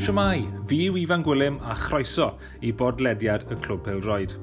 Shwmae, fi yw Ifan Gwilym a chroeso i bodlediad y Clwb Pêl-droed.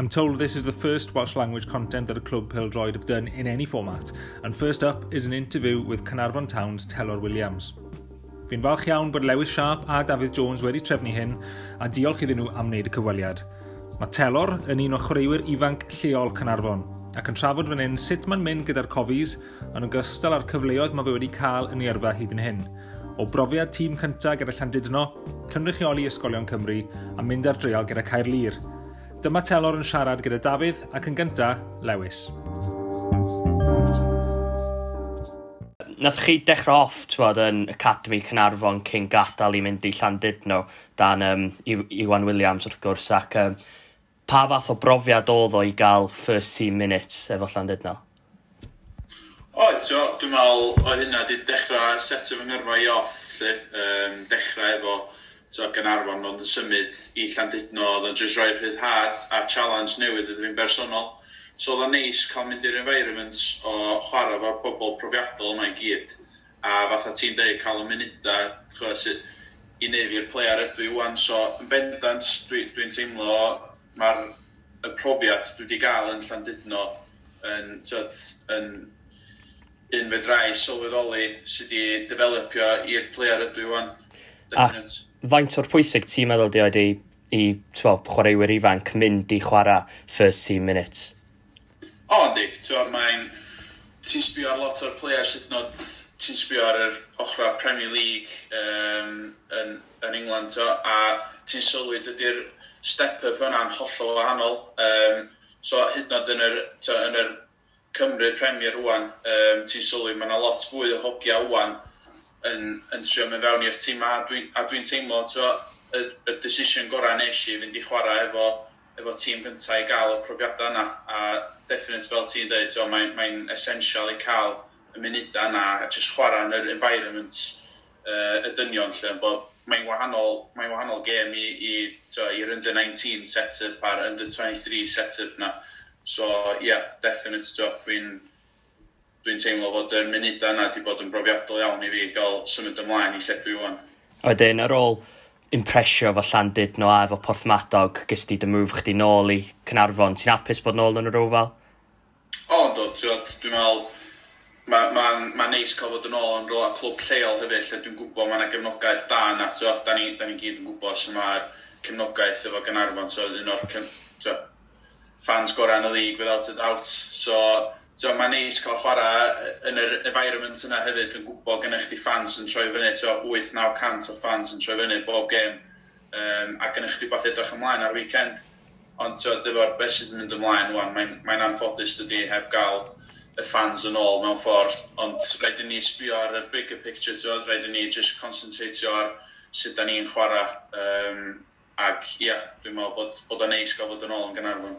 I'm told this is the first Welsh language content that a Clwb Pêl-droed have done in any format, and first up is an interview with Caernarfon Town's Telor Williams. Fi'n falch iawn bod Lewis Sharp a Dafydd Jones wedi trefnu hyn, a diolch iddyn nhw am wneud y cyfweliad. Mae Telor yn un o chwaraewyr ifanc lleol Caernarfon, ac yn trafod fan hyn sut mae'n mynd gyda'r Cofis, yn ogystal â'r cyfleoedd mae fe wedi cael yn ei yrfa hyd yn hyn. O brofiad tîm cyntaf gyda Llandudno, cynrychioli Ysgolion Cymru a mynd ar dreial gyda Caerlŷr. Dyma Telor yn siarad gyda Dafydd ac yn gyntaf, Lewis. Nath chi dechrau off, t'wod, yn Academy Caernarfon cyn gadael i mynd i Llandudno dan Iwan Williams wrth gwrs, ac pa fath o brofiad oedd o i gael first team minutes efo Llandudno? Oedd, so, dwi'n meddwl oedd hynna wedi dechrau setio fy ngyrfa i off, lle. Dechrau efo so, Gaernarfon, ond yn symud i Llandudno, oedd o'n just rhoi rhyddhad a challenge newydd iddo fi'n bersonol. So oedd o'n neis cael mynd i'r environment o chwarae efo'r pobl profiadol yma i gyd. A fatha ti'n deud, cael y munudau, ch'mo', sydd i neud fi'r player ydw i wan. So yn bendant, dwi teimlo mae'r y profiad dwi wedi gael yn Llandudno yn, t'wod, yn un fedrai sylweddoli sydd wedi developio i'r player ydw i wan. A Definite. faint o'r pwysig ti'n meddwl di oed i t'wo, chwaraewyr ifanc mynd i chwarae first team minutes? O, yndi. T'wo, mae'n... Ti'n sbio ar lot o'r players hyd yn oed, ti'n sbio ar yr ochrau Premier League yn England, t'wo, a ti'n sylwi dydy'r step-up yna'n hollol wahanol. So hyd yn oed yn yr, t'wo, yn yr Cymru Premier rwan, ti'n sylwi mae yna lot fwy o hogia wan yn trio mynd fewn i'r tîm, a dwi teimlo, t'wo, y decision gorau nes i fynd i chwarae efo tîm gyntaf i gael y profiadau yna, a definite fel ti'n dweud, t'wo, mae essential i cael y munudau yna a just chwarae yn yr environment y dynion lle, bod mae'n wahanol gêm i, t'wo, i'r under 19 set-up a'r under 23 set-up na. So, yeah, definite, t'wo, dwi teimlo fod y munudau yna wedi bod yn brofiadol iawn i fi gael symud ymlaen i lle dwi wan. Wedyn, ar ôl impresio efo Llandudno a efo Porthmadog, ges di dy move chdi nôl i Caernarfon. Ti'n hapus bod nôl yn yr Oval? O, do, t'wod, dwi'n meddwl, mae'n ma neis cael fod yn ôl yn rhywle clwb lleol hefyd, lle dwi'n gwybod mae yna gefnogaeth da yna, t'wod, da ni gyd yn gwybod sut mae'r cefnogaeth efo Gaernarfon, t'wod, un o'r t'wod, fans gorau yn y league without a doubt. So, t'wod, mae'n neis cael chwarae yn yr environment yna hefyd, dwi'n gwybod gennych chdi fans yn troi fyny, so 8-900 o fans yn troi fyny bob gêm, a gennych chdi beth edrych ymlaen ar weekend. Ond t'wod, efo'r beth sydd yn mynd ymlaen wan, mae'n anffodus dydy heb gael y fans yn ôl mewn ffordd, ond rhaid i ni sbio ar y bigger picture, t'wod, rhaid i ni just concentratio ar sut da ni'n chwarae, ac ie, yeah, dwi'n meddwl bod o'n neis gael fod yn ôl yn Gaernarfon.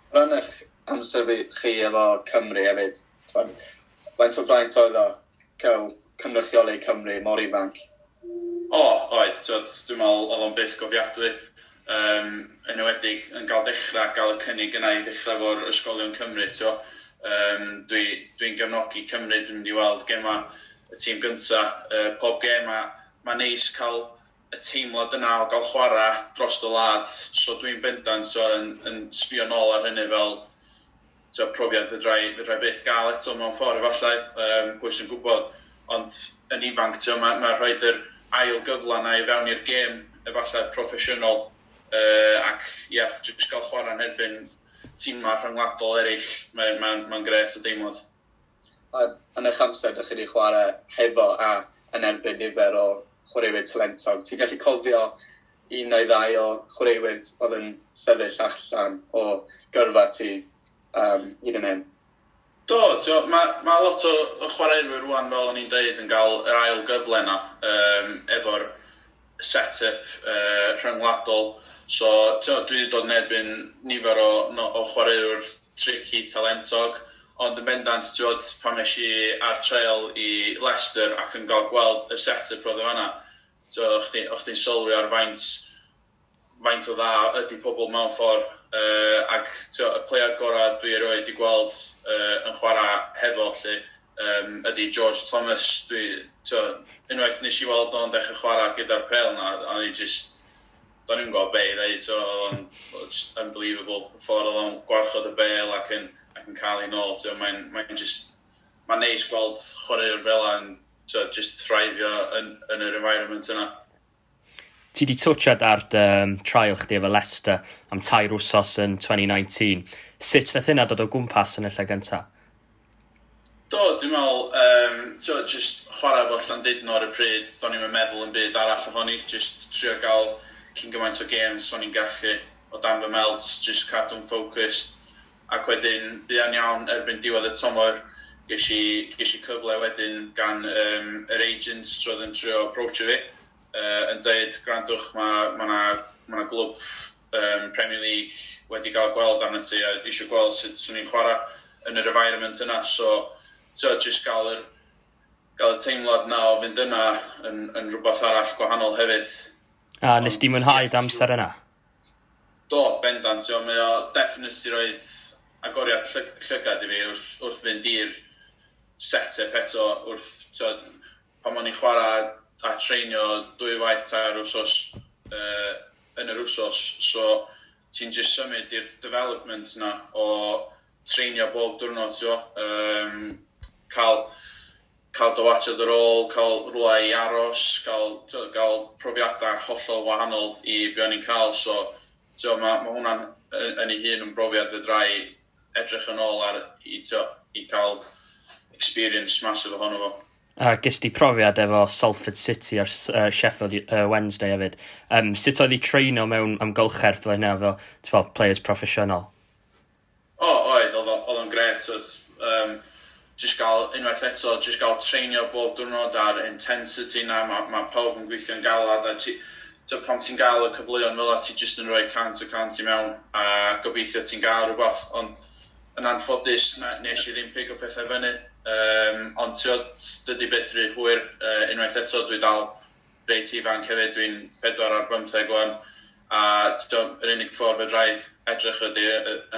Ran eich amser chi efo Cymru hefyd, t'mod, faint o fraint oedd o cael cynrychioli Cymru mor ifanc? O, oedd, t'wod, dwi'n meddwl oedd o'n byth gofiadwy. Yn enwedig yn cael dechrau, gael y cynnig yna i ddechrau efo'r Ysgolion Cymru, t'wo. Dwi gefnogi Cymru, dwi'n mynd i weld gema y tîm gynta, pob gem, a mae'n neis cael y teimlad yna o gael chwarae dros y wlad, so dwi'n bendant so, yn sbio nôl ar hynny fel, t'wo, profiad fedrai byth gael eto mewn ffordd efallai, pwy sy'n gwybod, ond yn ifanc, t'wo, ma rhoid yr ail gyfle yna i fewn i'r gêm efallai proffesiynol, ac ie, yeah, jyst gael chwarae yn erbyn tîmau rhyngwladol eraill, mae'n ma grêt o deimlad. A yn eich amser, ydych chi wedi chwarae hefo a yn erbyn nifer o chwaraewyr talentog. Ti'n gallu cofio un neu ddau o chwaraewyr oedd yn sefyll allan o gyrfa ti hyd yn hyn? Do, t'wo, ma lot o chwaraewyr rwan, fel o'n i'n deud, yn cael yr ail gyfle yna efo'r set-up rhyngwladol. So, t'wo, dwi wedi dod yn erbyn nifer o, no, o chwaraewyr tricky, talentog, ond yn bendant, t'wod, pan nes i ar trial i Leicester ac yn cael gweld y set-up roedd o fan'na, t'wo, o'ch chdi'n sylwi ar faint o dda ydy pobl mewn ffordd, ac t'wo, y player gorau dwi erioed wedi gweld yn chwarae hefo, lle, ydy George Thomas. Unwaith nes i weld o'n dechrau chwarae gyda'r pel na, a ni just, do'n i'n gwybod be i ddeud, so oedd o'n just unbelievable. Y ffordd oedd o'n gwarchod y bel ac yn cael ei nôl, mae'n just, mae'n neis gweld chwaraewr fel yna just thrifio yn yr environment yna. Ti di twtsiad ar dy trial chdi efo Leicester am 3 wsos yn 2019. Sut nath hynna dod o gwmpas yn y lle gyntaf? Do, dwi'n meddwl, just chwarae efo Llandudno ar y pryd, do'n i'm yn meddwl yn byd arall ohoni, just trio gael cyn gymaint o games o'n i'n gallu o dan fy melt, just cadw'n focused, ac wedyn, buan iawn erbyn diwedd y tymor, ges i cyfle wedyn gan yr agents roedd yn trio approachio fi, yn dweud, gwrandwch, mae 'na glwb Premier League wedi gael gweld arno ti, a eisiau gweld sut swn i'n chwarae yn yr environment yna, so just gael y teimlad na o fynd yna yn rhywbeth arall gwahanol hefyd. A nes di mwynhau dy amser yna? Do, bendant. Mae o definitely roed agoriad llygad i fi wrth fynd i'r set-up eto, wrth, pan o'n i'n chwarae a treinio 2 waith 3 wsos yn yr wsos, so ti'n just symud i'r development na o treinio bob diwrnod, cael dy watchad ar ôl, cael rhywle i aros, cael profiadau hollol wahanol i be o'n i'n cael, so mae hwnna'n yn ei hun yn brofiad fedra i edrych yn ôl ar i cael experience massive ohono fo. A ges di profiad efo Salford City ar Sheffield Wednesday hefyd. Sut oedd i treino mewn amgylchedd fel hynna efo players proffesiynol? O, oedd o'n gret. So, just gael, unwaith eto, just gael treinio bob diwrnod ar intensity na, mae pawb yn gweithio'n galad, a pan ti'n gael y cyfleoedd fel 'na, ti just yn rhoi 100% i mewn, a gobeithio ti'n gael rhywbeth, ond yn anffodus, nes i ddim pigo pethau fyny, ond dydy byth rhy hwyr, unwaith eto, dwi dal reit ifanc hefyd, dwi'n 4 ar 15 wan, a yr unig ffordd fedra i edrych ydy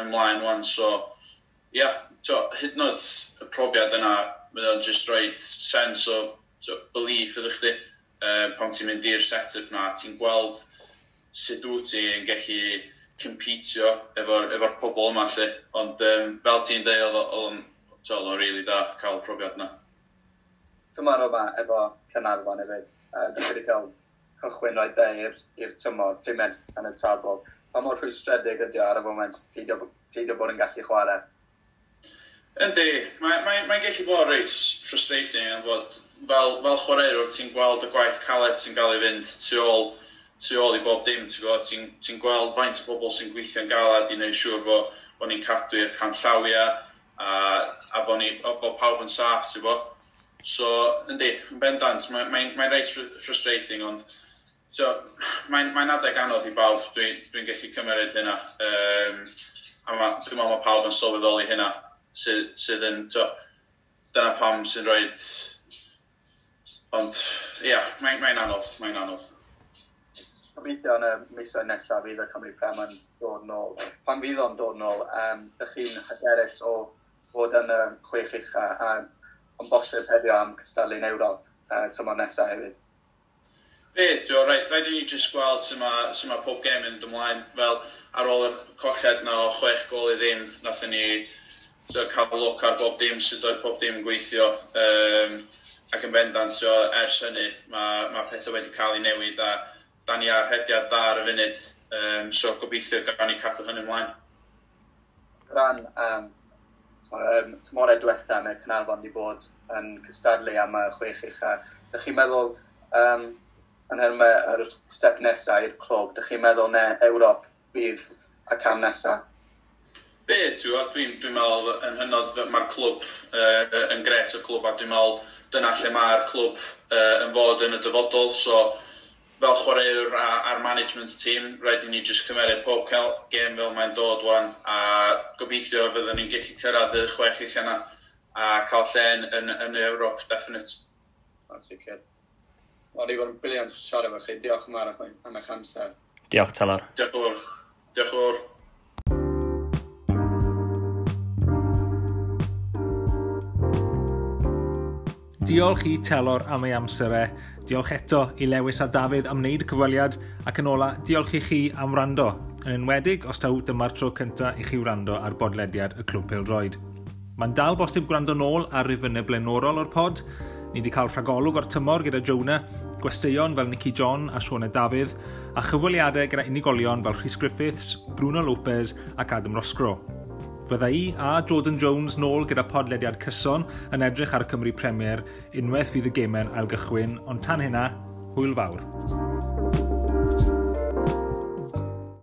ymlaen wan, so ia, hyd yn oed y profiad yna, mae o'n just rhoi sense o belief iddo chdi, pan ti'n mynd i'r set-up na, ti'n gweld sut wyt ti'n gallu competio efo'r pobl yma, lle. Ond fel ti'n dweud, oedd o'n really da cael profiad yna. Tymor yma efo Caernarfon hefyd, dych chi wedi cael cychwyn rhoi de i'r tymor, pumed yn y tabl. Pa mor rhwystredig ydi o ar y foment peidio bod yn gallu chwarae? Yndi, mae'n gallu bod reit frustrating, yn fod fel chwaraewr ti'n gweld y gwaith caled sy'n gael ei fynd tu ôl i bob dim, ti'n ti'n gweld faint o bobl sy'n gweithio'n galad i wneud siŵr bod ni'n cadw i'r canllawiau a bod pawb yn saff, ti'n gwybod. So, yndi, yn bendant, mae'n reit frustrating, ond so, mae'n adeg anodd i bawb, dwi'n gallu cymryd hynna. A dwi'n meddwl mae pawb yn sylweddoli hynna, sydd yn, dyna pam sy'n rhoi, ond ia, yeah, mae'n anodd, mae'n anodd. Gobeithio yn y misoedd nesaf fydd y Cymru Prem yn dod nôl. Pan fydd o'n dod nôl, ydych chi'n hyderus o fod yn y 6 ucha a yn bosib heddiw am cystadlu yn Ewrop tymor nesaf hefyd? Be, rhaid i ni jyst gweld sut mae pob gêm yn ymlaen. Fel ar ôl y colled na o 6 gôl i ddim, nathon ni cael look ar bob dim, sut oedd pob dim yn gweithio. Ac yn bendant, so, ers hynny, mae pethau wedi cael ei newid a da ni ar rhediad da ar y funud, so gobeithio gawn ni cadw hynny ymlaen. Ran tymorau diwetha mae Caernarfon wedi bod yn cystadlu am y 6 ucha. Dych chi'n meddwl, yn nhermau yr step nesaf i'r clwb, dych chi'n meddwl ne Ewrop fydd y cam nesaf? Be, dwi'n meddwl yn hynod mae'r clwb yn gret o clwb, a dwi'n meddwl dyna lle mae'r clwb yn fod yn y dyfodol, so fel chwaraewr a'r management team, rhaid i ni jyst cymeryd pob gêm fel mae'n dod wan, a gobeithio fyddwn ni'n gallu cyrraedd y 6 ucha yna a cael lle yn Ewrop, definite. Yn sicr. Wel, wedi bod yn brilliant siarad efo chi. Diolch yn fawr am eich amser. Diolch, Telor. Diolch yn fawr. Diolch yn fawr. Diolch i Telor am ei amser e. Diolch eto i Lewis a Dafydd am wneud y cyfweliad ac yn ola, diolch i chi am wrando. Yn enwedig os taw dyma'r tro cyntaf i chi wrando ar bodlediad y Clwb Pêl-droed. Mae'n dal bosib gwrando nôl ar rifynnau blaenorol o'r pod. Ni wedi cael rhagolwg o'r tymor gyda Jonah, gwesteion fel Nicky John a Siona Dafydd, a chyfweliadau gyda unigolion fel Rhys Griffiths, Bruno Lopez ac Adam Roscrow. Fydda i a Jordan Jones nôl gyda podlediad cyson yn edrych ar y Cymru Premier unwaith fydd y gemau'n ailgychwyn, ond tan hynna, hwyl fawr.